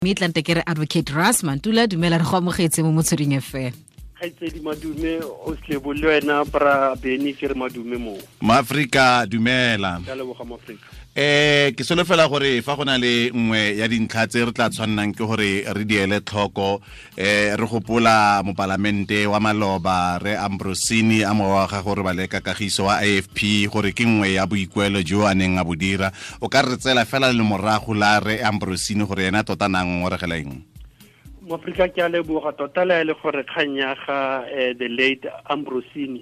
Mme tlante ke re Advocate Ras Mantula, dumela, re go amogetse mo Motsweding FM. Kgaitsedi, madume o slebo le wena bra Beny, ke re madume mo. Maaforika, dumela. Ke a leboga, Moafrika. Ke solofela gore fa go na le nngwe ya dintlha tse re tla tshwannang ke gore re di ele tlhoko, re gopola mopalamente wa maloba re Ambrosini a mowa wa gago re baleka kagiso wa AFP, gore ke nngwe ya boikuelo jo a neng a bo dira. O ka re tsela fela le morago la re Ambrosini gore ena tota nang ngongoregela eng? Moafrika, ke a leboga tota. Le le gore kgang ya ga the late Ambrosini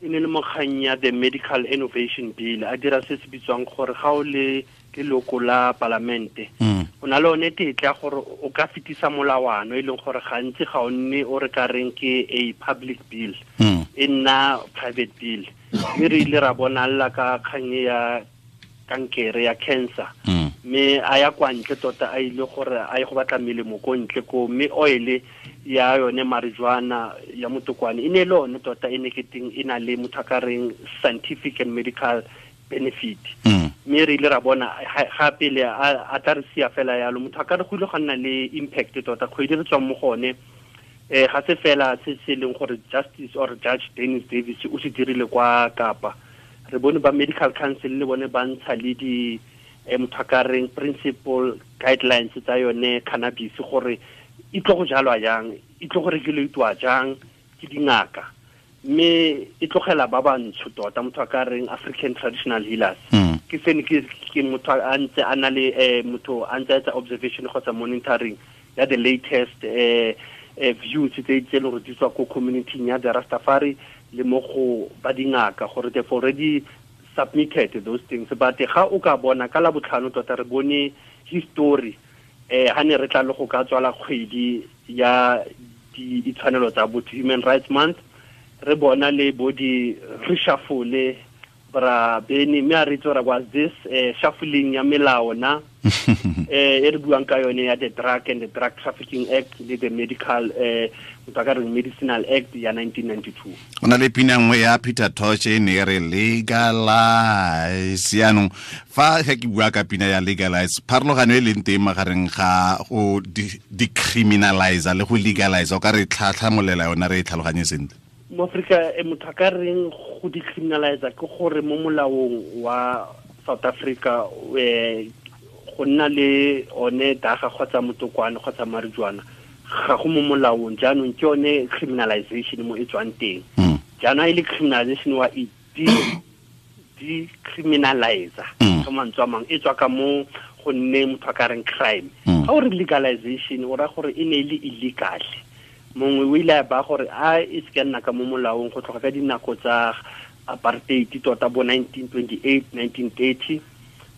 e ne le mo kgang ya the Medical Innovation Bill, a dira se se bitswang gore ga o le leloko la palamente, o na le one tetla gore o ka fetisa molawano, e leng gore gantsi ga o nne o re ka reng ke a public bill, e nna private bill. Mme re ile ra bonalla ka kgang ya kankere ya cancer, mme a ya kwa ntle tota, a ile gore a ye go batla melemo ko ntle ko, mme oil ya yone marijuana ya motokwane e ne le one tota e ne ke teng e na le motho a ka reng scientific and medical benefit. Mme re ile ra bona ga pele a tla re sia fela yalo, motho a ka re go ile go nna le impact tota. Kgwedi re tswang mo gone, ga se fela se se leng gore Justice or Judge Dennis Davis o se dirile kwa Kapa. Re bone ba Medical Council le bone ba ntsha le di motho a ka reng principle guidelines tsa yone cannabis, gore e tlo go jalwa jang, e tlo go regulatwa jang ke dingaka, mme e tlogela ba bantsho tota, motho a ka reng African traditional healers. Ke sene ke motho a ntse a na le motho a ntse a etsa observation kgotsa monitoring ya the latest views tse leng gore di tswa ko community ya the Rastafari le mo go ba dingaka, gore they've already submitted those things. But ga o ka bona ka la botlhano tota re bone history, ha ne re tla le go ka tswala kgwedi ya ditshwanelo tsa botho, Human Rights Month, re bona le bo di reshuffle, bra Beny, mme a re itse gore was this shuffling ya melao na e re buang ka yone ya the Drug and the Drug Trafficking Act le the Medical, motho a ka reng Medicinal Act ya 1992. Go na le pina nngwe ya Peter Tosh e ne e re "Legalize". Yaanong fa ge ke bua ka pina ya "Legalize", pharologano e leng teng magareng ga go decriminalize le go legalize, o ka re tlhatlhamolela yona re e tlhaloganye sentle? Mo Afrika, motho a ka reng go decriminalize ke gore mo molaong wa South Africa, go nna le one daga kgotsa motokwane kgotsa marijuana ga go mo molaong. Jaanong ke yone criminalization mo e tswang teng. Jaanong e le criminalization wa e decriminalize, ka mantswe a mangwe e tswa ka mo go nne motho a ka reng crime. Ga o re legalization, o raya gore e ne e le illegal, mongwe o ile a ba gore a e se ka nna ka mo molaong go tloga ka dinako tsa apartheid tota, bo 1928, 1930.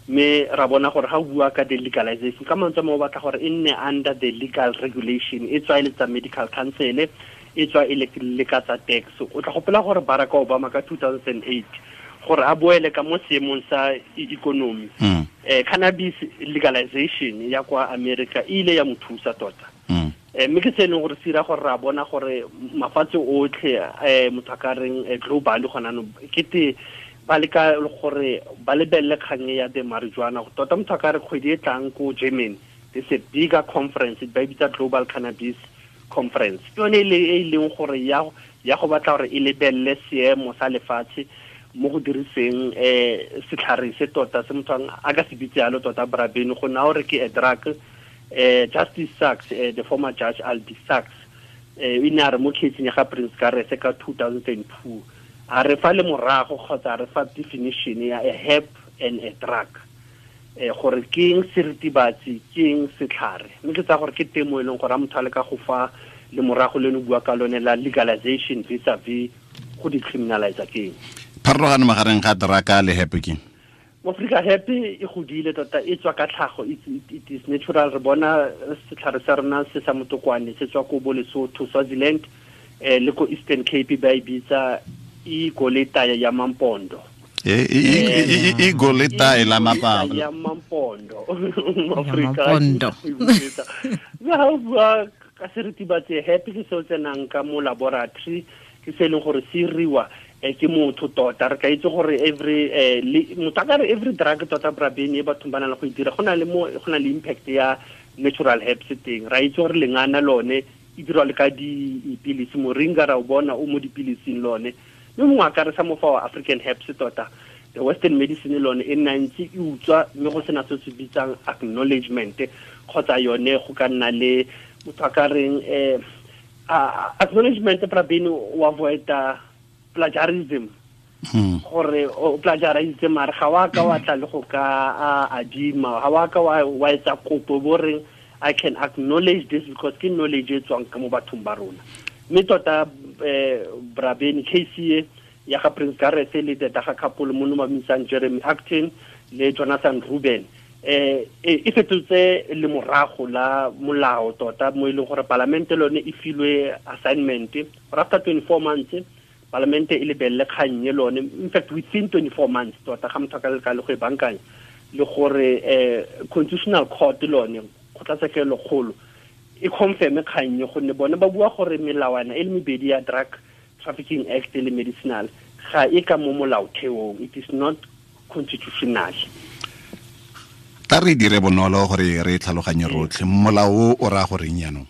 Mme ra bona gore ga o bua ka the legalization, ka mantswe a mangwe o batla gore e nne under the legal regulation, e tswa e le tsa Medical Council, e tswa e le ka tsa tax. O tla gopola gore Barack Obama ka 2008, gore a boele ka mo seemong sa economy, cannabis legalization ya kwa America e ile ya mo thusa tota. Mme ke se e leng gore se dira gore ra bona gore mafatshe otlhe, motho a ka reng global gona no, ke te ba leka gore ba lebelele kgang ya the marijuana tota. Motho a ka re kgwedi e tlang ko Germany there's a bigger conference ba e bitsa Global Cannabis Conference. Ke yone e leng gore ya go batla gore e lebelele seemo sa lefatshe mo go diriseng setlhare se tota se motho a ka se bitse yalo tota, bra Beny, go na gore ke a drug. Justice Sachs, the former Judge Albie Sachs, o ne a re mo case ya ga Prince Karese ka 2002, a re fa le morago kgotsa a re fa definition ya a herb and a drug, gore ke eng seritibatsi, ke eng setlhare. Mme ke tsaya gore ke temo e leng gore a motho a le ka go fa le morago le no bua ka lone la legalization vis-a-vis go decriminalize ke eng. Pharologano magareng ga drug le herb ke? Mo Afrika, herb e godile tota, e tswa ka tlhago, it is natural. Re bona setlhare sa rona se sa motokwane se tswa ko bo Lesotho, Swaziland, le ko Eastern Cape ba e bitsa igoleta ya Mampondo. Igoleta la mapa ya Mampondo. Mampondo. Mme ga o bua ka seritibatsi, herb ke se o tsenang ka mo laboratory, ke se e leng gore se iriwa ke motho tota. Re ka itse gore every motho a ka re every drug tota, bra Beny, e bathong ba na le go e dira, go na le mo go na le impact ya natural herbs teng. Ra itse gore lengana lone e dirwa le ka dipilisi, moringa ra o bona o mo dipilising lone. Mme mongwe a ka re sa mo fa wa African herbs tota, the Western medicine lone e nna ntse e utswa, mme go sena se se bitsang acknowledgement kgotsa yone go ka nna le motho a ka reng acknowledgement Prabin o avoida plagiarism. Gore o plagiarise mare ga wa ka wa tla le go ka adima, ga wa ka wa etsa kopo bo reng I can acknowledge this because ke knowledge e tswang ka mo bathong ba rona. Mme tota Brabeni case ya ga Prince Gareth le the Daga couple mo no ba Jeremy Acton le Jonathan Ruben e fetotse le morago la molao tota mo e leng gore palamente lone e filwe assignment gore after 24 months palamente e lebelele kgang e lone, in fact within 24 months tota ga motho a ka leka le go e bankanya le gore constitutional court lone kgotlatshekelo kgolo e confirme kgang e, gonne bone ba bua gore melawana e le mebedi ya Drug Trafficking Act le medicinal ga e ka mo molaotheong, it is not constitutional. Tla re dire bonolo gore re tlhaloganye rotlhe, molao o raya goreng jaanong?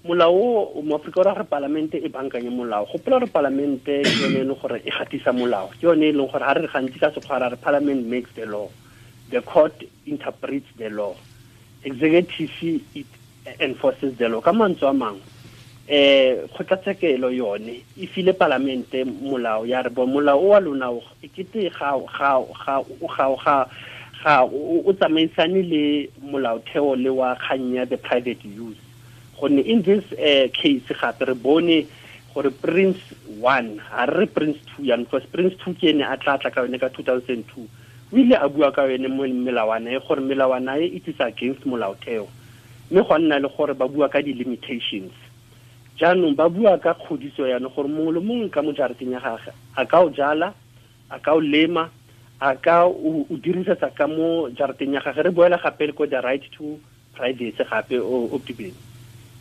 Molao o mo Afrika o raya gore palamente e bankanye molao. Gopola gore palamente ke yone e leng gore e gatisa molao, ke yone e leng gore ga re gantsi ka sekgwa ra re parliament makes the law, the court interprets the law, executive it enforces the law. Ka mantswe a mangwe kgotlatshekelo yone e file palamente molao ya re bo molao o wa lona e kete ga o tsamaisane le molaotheo le wa kgang ya the private use. Gonne in this case gape re bone gore Prince 1 ga re Prince 2 yang, because Prince 2 ke ene a tla tla ka yone ka 2002, o ile a bua ka yone mo melawana e gore melawana e it is against molaotheo, mme go nna le gore ba bua ka di-limitations. Jaanong ba bua ka kgodiso yana gore mongwe le mongwe ka mo jarateng ya gagwe a ka o jala, a ka o lema, a ka o dirisetsa ka mo jarateng ya gagwe. Re boela gape le ko the right to privacy gape o tibeng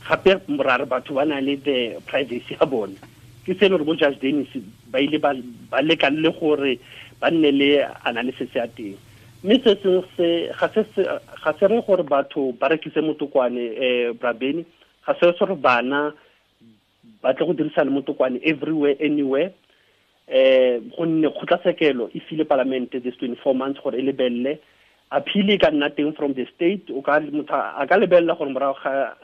gape ra re batho ba na le the privacy ya bone. Ke se le gore bo Judge Dennis ba ile ba leka le gore ba nne le analysis ya teng. Mme se sengwe se ga se re gore batho ba rekise motokwane Brabeni, ga se gore bana ba tle go dirisa le motokwane everywhere anywhere, gonne kgotlatshekelo e file palamente this 24 months gore e lebelele. Appeal e ka nna teng from the state, o ka motho a ka lebelela gore morago ga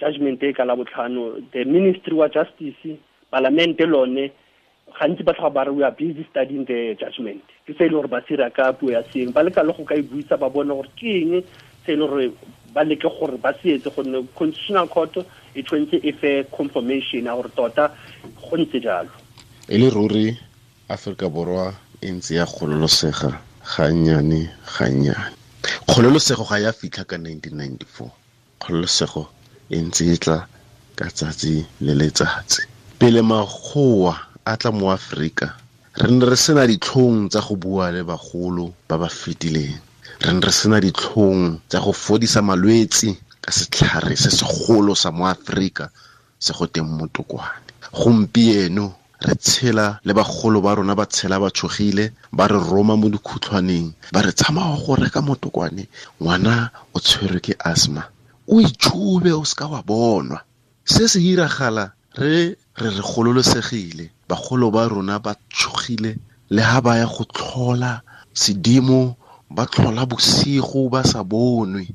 judgment e ka la botlhano the ministry wa justice palamente lone gantsi ba tlhoga ba re we are busy studying the judgment. Ke se e leng gore ba sira ka puo ya seeng, ba leka le go ka e buisa ba bone gore ke eng se e leng gore ba leke gore ba se etse, gonne constitutional court e tshwanetse e fe confirmation ya gore tota go ntse jalo. E le ruri Afrika Borwa e ntse ya kgololosega gannyane gannyane. Kgololosego ga ya fitlha ka 1994, kgololosego e ntse e tla ka tsatsi le letsatsi. Pele makgowa a tla mo Afrika, re ne re sena ditlhong tsa go bua le bagolo ba ba fetileng, re ne re sena ditlhong tsa go fodisa malwetse ka setlhare se segolo sa mo Afrika se go teng motokwane. Gompieno re tshela le bagolo ba rona ba tshela ba tshogile, ba re roma mo dikhutlhwaneng, ba re tsamaya go reka motokwane, ngwana o tshwerwe ke asthma, o itshube o seka wa bonwa. Se se iragala re re gololosegile, bagolo ba rona ba tshogile le ha ba ya go tlhola sedimo, ba tlhola bosigo ba sa bonwe.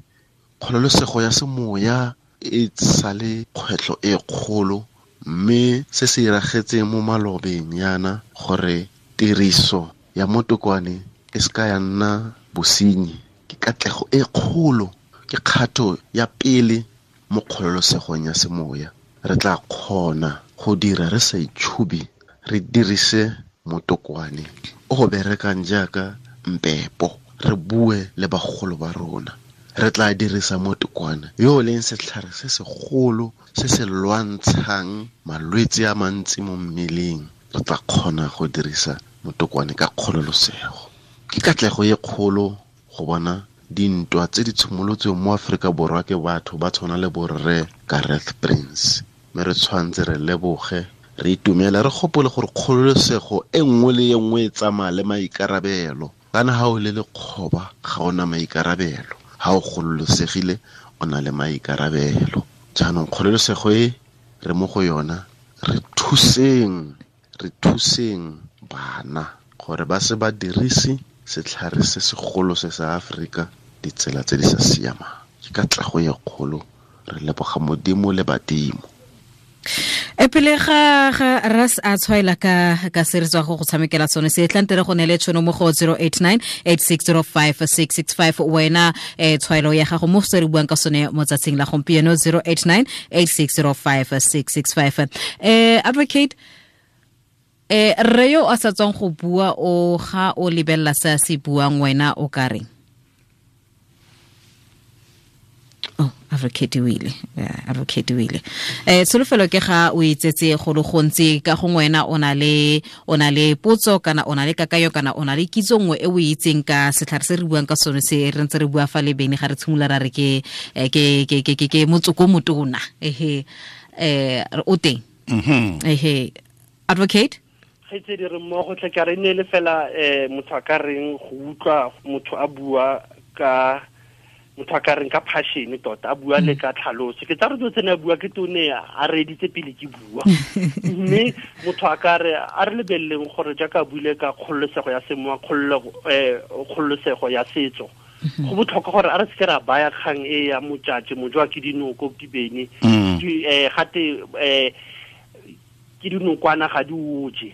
Kgololosego ya semoya e sale kgwetlho e kgolo, mme se se iragetseng mo malobeng yana gore tiriso ya motokwane e seka ya nna bosenyi ke katlego e kgolo, ke kgato ya pele mo kgololosegong ya semoya. Re tla kgona go dira re sa itšhubi, re dirise motokwane o go berekang jaaka mpepo, re bue le bagolo ba rona. Re tla dirisa motokwane yo o leng setlhare se segolo se se lwantshang malwetse a mantsi mo mmeleng. Re tla kgona go dirisa motokwane ka kgololosego. Ke katlego e kgolo go bona dintwa tse di tshimolotsweng mo Afrika Borwa ke batho ba tshwana le borre Gareth Prince. Mme re tshwanetse re leboge, re itumele, re gopole gore kgololosego e nngwe le e nngwe e tsamaya le maikarabelo. Kana ha o le lekgoba ga ona maikarabelo, ha o gololosegile o na le maikarabelo. Jaanong kgololosego e re mo go yona, re thuseng bana gore ba se ba dirise setlhare se segolo se sa Afrika ditsela tse di sa siamang. Ke katlego e kgolo, re leboga Modimo le badimo. E pele ga ras a tshwaela ka se re tswa go tshamekela sone se tla ntere go nele tshono mo go 089 8605 665 wena tshwaelo ya gago mo se re buang ka sone mo tsatsing la gompieno 089 8605 665. Advocate, re yo a sa tswang go bua o ga o lebella se se buang wena o ka reng? Oh, advocate wile. Advocate wile. Tsholofelo ke ga o itsetse go le gontsi ka gongwe wena o na le potso kana o na le kakayo kana o na le kitso nngwe e o itseng ka setlhare se re buang ka sone se re ntse re bua fa le bene ga re tshimolola ra re ke motsoko motona. Ehe, o teng. Ehe, advocate? Gaitsedi re mmogo tle ka re ne le fela motho a ka reng go utlwa motho a bua ka motho a ka reng ka passion tota a bua le ka tlhaloso. Ke tsa re dilo tsene a bua ke tone a reeditse pele ke bua. Mme motho a ka re a re lebeleleng gore jaaka a buile ka kgololosego ya semowa, kgololosego ya setso, go botlhokwa gore a re seke ra baya kgang e ya motšatši mojwa ke dinoko ke bene gate ke dinokwana ga di oje.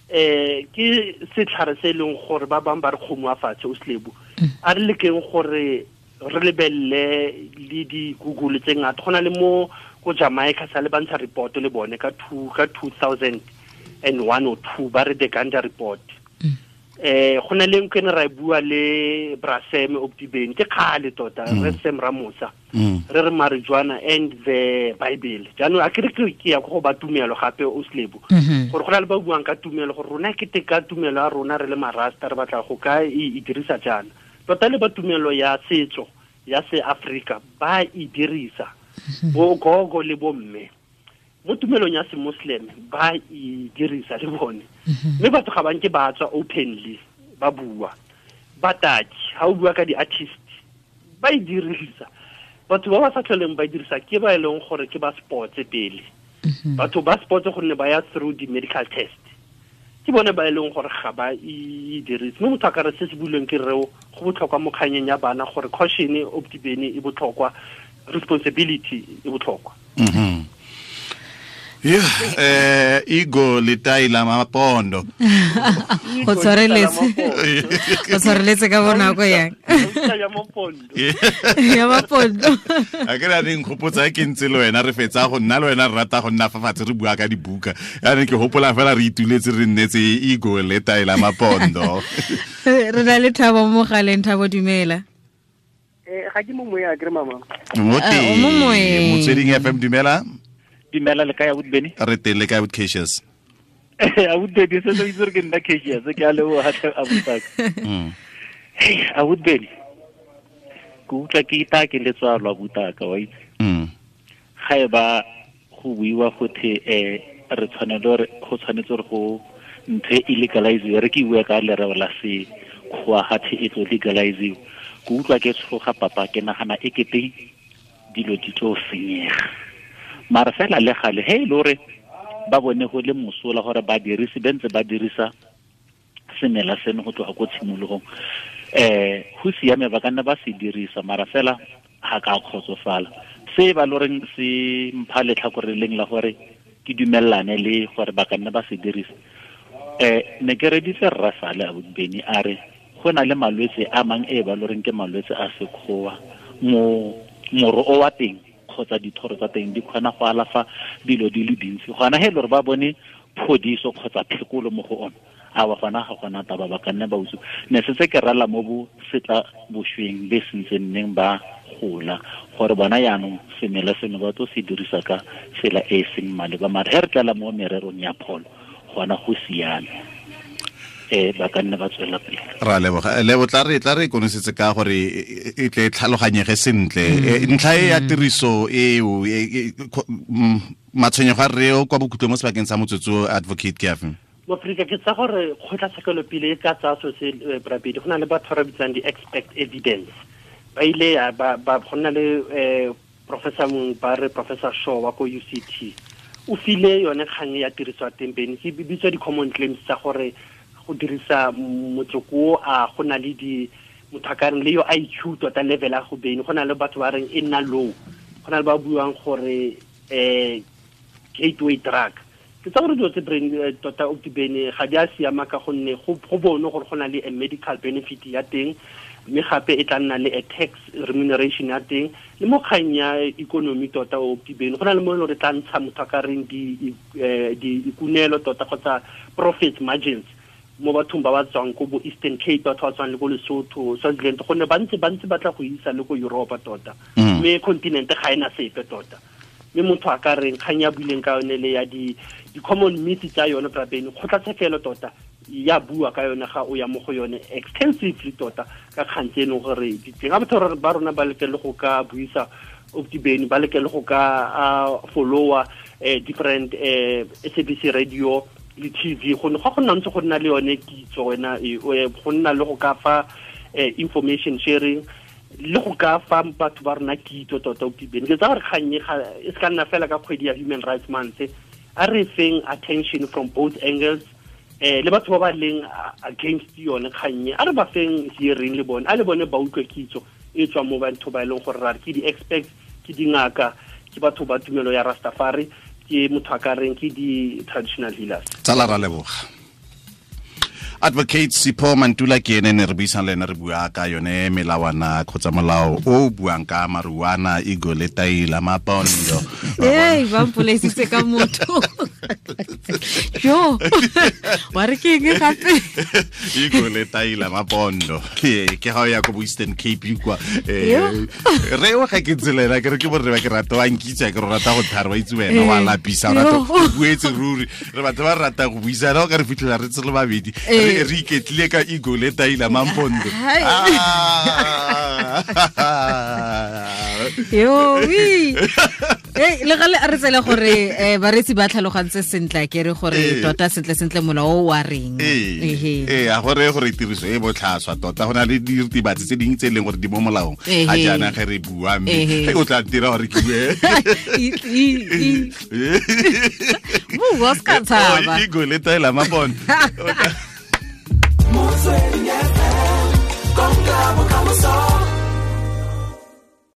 Ke setlhare se e leng gore ba bangwe ba re kgomo a fatshe o selebo. A re lekeng gore re lebelle le di-Google tse ngata. Go na le mo ko Jamaica sa le bantsha report le bone ka 2001 or 2 ba re the Ganja report. Go na le nkene ra bua le Brasem Optibeni ke kgale tota re Sam Ramosa re re marijuana and the Bible. Jaanong a ke re ke ya go ba tumelo gape o selebo gore go na le ba buang ka tumelo gore rona ke teka tumelo ya rona re le marasta re batla go ka e dirisa jaana. Tota le ba tumelo ya setso ya se Afrika ba e dirisa bo gogo le bo mme mo tumelong ya se Muslim ba e dirisa le bone. Mme batho ga ba nke ba tswa openly ba bua. Bataki ha o bua ka di-artist ba e dirisa. Batho ba ba sa tlholeng ba e dirisa ke ba e leng gore ke ba sports pele. Batho ba sports gonne ba ya through di-medical test, ke bone ba e leng gore ga ba e dirise. Mme motho a ka re se se builweng ke reo go botlhokwa mo kganyeng ya bana gore caution optibene e botlhokwa, responsibility e botlhokwa. Yeah, Igo letai la mapondo. Go tshwareletse ka bonako yang. Ya mapondo. Ya mapondo. A ke ra reng gopotsa ke ntse le wena re fetsa go nna le wena re rata go nna fa fatshe re bua ka dibuka. Ya re ke hopola fela re ituletse re nnetse Igo letai la mapondo. Re na le Thabo mo galeng. Thabo, dumela. Ga ke mo moya ke re mama. Mo teng. Motsweding FM, dumela. Dumela le kae abuti Beni? Re teng le kae abuti Cassius? Abuti Beni se itse gore ke nna Cassius, ke a leboga tlhe abuti. Hey, abuti Beni. Ke utlwa ke ita ke letswalo abutaka wa itse. Ga e ba go buiwa gothe re tshwanelo go tshwanetse gore go ntho e legalize, re ke bua ka lereo la se kgoa gathe e tlo legalize. Ke utlwa ke tshoga papa, ke nagana e kete dilo di tlo senyega. Mara fela le gale he le hore ba bone go le mosola gore ba dirise bentse ba dirisa semela seno go tloga ko tshimologong, go siame ba ka nna ba se dirisa, mara fela ga ka kgotsofala. Se ba loreng se mpha letlhakore leng la gore ke dumellane le gore ba ka nna ba se dirisa. Ne ke reditse rra Sale abuti Beni a re go na le malwetse a mang e ba loreng ke malwetse a sekgowa, moro o wa teng kgotsa dithoro tsa teng di kgona go alafa dilo di le dintsi. Gona he le gore ba bone phodiso kgotsa phekolo mo go ona, a wa gona ga gona taba ba ka nna ba utswa. Ne setse ke rala mo bo setla bošweng be sentse nneng ba gola gore bona yaanong semela seno ba tlo se dirisa ka tsela e e seng maleba. Mara he re tlala mo mererong ya pholo gona go siame, ba ka nna ba tswela pele. Ra leboga. Lebo tla re konosetse ka gore e tle tlhaloganyege sentle. Ntlha e ya tiriso eo matshwenyego a reo kwa bokhutlong mo sebakeng sa motsotso, advocate ke afe? Mo Afrika ke tsa gore kgotlatshekelo pele e ka tsaya so se brabedi, go na le batho ba re bitsang di-expert evidence. Ba ile ya ba go nna le professor mongwe ba re Professor Shaw wa ko UCT o file yone kgang ya tiriso ya teng bene ke bitswa di-common claims tsa gore go dirisa motsoko a go na le di motho a ka reng le yo IQ tota level a go bene go na le batho ba reng e nna low, go na le ba buang gore gateway drug. Ke tsa gore dilo tse brain tota o bene ga di a siama ka gonne go bone gore go na le a medical benefit ya teng, mme gape e tla nna le a tax remuneration ya teng le mo kgang ya economy tota o bene go na le mo e leng gore tla ntsha motho a ka reng di ikunelo tota kgotsa profit margins mo bathong ba ba tswang ko bo Eastern Cape, batho ba tswang le ko Lesotho, Swaziland, gonne ba ntse ba tla go isa le ko Europa tota, mme continent ga ena sepe tota. Mme motho a ka reng kgang ya buileng ka yone le ya di common myths tsa yone brabene kgotlatshekelo tota ya bua ka yone ga o ya mo go yone extensively tota ka kgang tse e leng gore di teng. Ga batho ba rona ba leke le go ka buisa Optibeni, ba leke le go ka followa different SABC radio le TV, go ga go nna ntse go nna le yone kitso wena, go nna le go ka fa information sharing le go ka fa batho ba rona kitso tota Optibeni. Ke tsa gore kgang e se ka nna fela ka kgwedi ya Human Rights Month, a re feng attention from both angles, le batho ba ba leng against yone kgang e a re ba feng hearing le bone, a le bone ba utlwe kitso e tswa mo batho ba e leng gore ra re ke di-experts, ke dingaka, ke batho ba tumelo ya Rastafari, ke motho a ka reng ke di-traditional healers. Tsala ra leboga. Advocate Sipho Mantula ke ene ne re buisang le ene, re bua ka yone melawana kgotsa molao o buang ka marijuana, ego le taila mapondo. Ei, ba mpolaisitse ka motho. Yo, wa re ke eng gape? Ego le taila mapondo. Ke ga o ya ko bo Eastern Cape kwa. Re o ga ke tselela ke re ke borre ba ke rata wa nkitsa ke re rata go thara wa itse wena wa lapisa o rata go buetse ruri. Re batho ba rata go buisana o ka re fitlhela re tsele babedi. Re iketlile ka ego le taila mampondo. Yo, wi. Le gale a re tsela gore bareetsi ba tlhalogantse sentle ke re gore tota sentle sentle molao o wa reng. A gore tiriso e botlhaswa tota go na le diritibatsi tse dingwe tse e leng gore di mo molaong ga jaana ge re bua, mme o tla ntira gore ke bue. Bua se ka tshaba. Ego le taila mapondo. Motsweding FM, konka bokamoso.